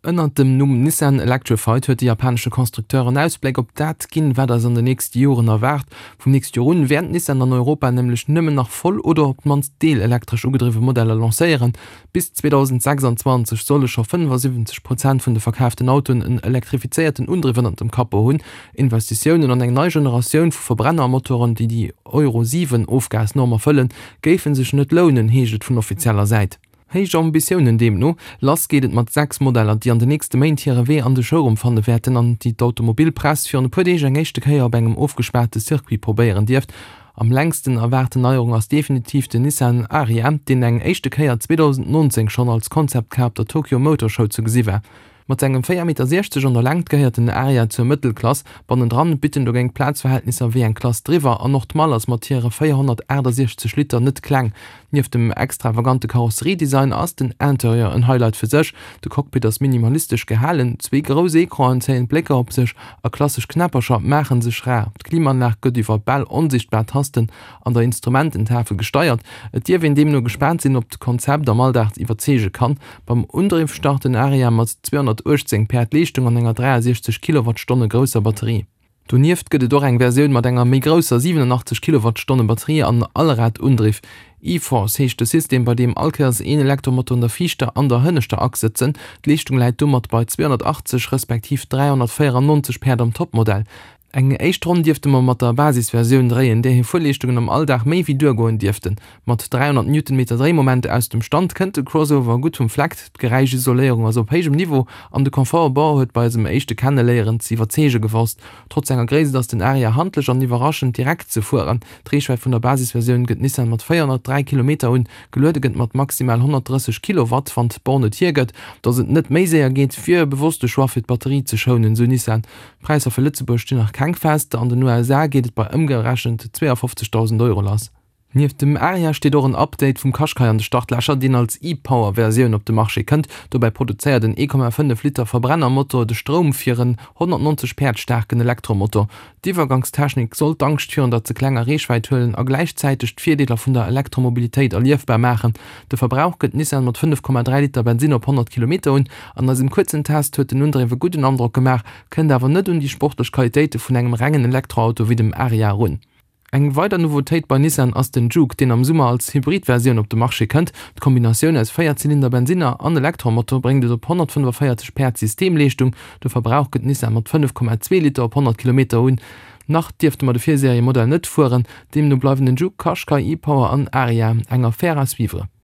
Ënnert dem Numm Nissan Electrified huet de japanesche Constructeur en Ausbléck op dat ginn, wat eis an den nächste Joren erwaart. Vum nächste Joer un wäert Nissan an Europa nämlech nëmmen nach voll oder op d'mannst deelelektresch ugedriwwe Modeller lancéieren. Bis 2026 solle scho 75 Prozent vun de verkaaften Autoen en elektrifizéierten Undriff ënnert dem Capot hunn. Investitiounen an eng nei Generatioun vu Verbrennermotoren, déi déi Euro 7 Ofgasnorm erfëllen, géife sech net lounen, heescht et vun offizieller Säit. Héich Ambitiounen deemno. Lass geet et mat 6 Modeller, déi an de nächste Méint hire Wee an de Showroom fanne wäerten an déi d'Automobilpress virun e puer Deeg eng éischte Kéier op engem ofgespaarte Circuit probéieren dierft. Am längsten erwaarten Neierung ass definitiv den Nissan Ariya, deen eng éischte Kéier 2019 schonn als Concept Car op der Tokyo Motor Show ze gesi war. Mat sengem 4,60 Meter an der Längt gehéiert den Ariya zur Mëttelklass. Bannendran bitt en dogéint Plazverhältnisser wéi eng Klass driwwer an och d'Mall ass mat hire 468 Liter net kleng. Nieft dem extravagante Karosseriedesign ass den Interieur en Highlight fir sech. De Cockpit ass minimalistesch gehalen, zwee grouss Ecranen zéien d'Blécker op sech a klassesch Knäppercher maache sech rar. D'Klimaanlag gëtt iwwer bal onsichtbar Tasten an der Instrumententafel gesteiert. Et dierf een deemno gespaant sinn, ob d'Konzept am Alldag iwwerzeege kann. Beim Undriff start den Ariya mat 218 Päerd Leeschtung an enger 63 Kilowattstonne grousser Batterie. Donieft gëtt et och eng Versioun mat enger méi grousser 87 Kilowattstonne Batterie an Allradundriff. E-Force heescht de System, bei deem all Kéiers een Elektromotor an der viischter an der hënneschter Achs sëtzen. D'Leeschtung läit domat bei 280 respektiv 394 Päerd am Topmodell. Eng éischt Ronn dierfte mer mat der Basisversioun dréien, där hir Fuerleeschtungen am Alldag méi wéi duergoen dierften. Mat 300 Newtonmeter Dréimoment aus dem Stand kënnt de Crossover gutt vum Fleck, d'Geräischisoléierung ass op héijem Niveau an de Confort u Bord huet bei eisem éischte Kenneléieren ze iwwerzeege gewosst. Trotz senger Gréisst ass den Ariya handlech an iwwerraschend direkt ze fueren. D'Reechwäit vun der Basisversioun gëtt Nissan mat 403 Kilometer un, geluede gëtt mat maximal 130 Kilowatt. Wann d'Born et hiergëtt, datt et net méi séier geet, wier e bewosste Choix fir d'Batterie ze schounen, sou Nissan. D'Präisser fir Lëtzebuerg stinn nach keng fest, an den USA geet et bei ëmgerechent 52.000 Euro lass. Nieft dem Ariya steet och en Update vum Qashqai an de Startlächer, deen als e-Power-Versioun op de Marché kënnt. Dobäi produzéiert en 1,5 Liter Verbrennermotor de Stroum fir en 190 Päerd staarken Elektromotor. D'Iwwergangstechnik soll d'Angscht virun der ze klenger Reechwäit huelen a gläichzäiteg d'Virdeeler vun der Elektromobilitéit erliefbar maachen. De Verbrauch gëtt Nissan mat 5,3 Liter Bensinn op 100 Kilometer un. An eisem kuerzen Test huet den Undriff e gudden Androck gemaach, kënnt awer net un déi sportlech Qualitéite vun engem rengen Elektroauto wéi dem Ariya erun. Eng weider Nouveautéit bei Nissan ass den Juke, deen am Summer als Hybrid-Versioun op de Marché kënnt. D'Kombinatioun aus Véierzylinder-Bensinner an Elektromotor bréngt et op 145 Päerd Systemleeschtung. De Verbrauch gëtt Nissan mat 5,2 Liter op 100 Kilometer un. Nach dierfte mer de Virseriemodell net fueren, deemno bleiwen den Juke, Qashqai, e-Power an Ariya eng Affaire à suivre.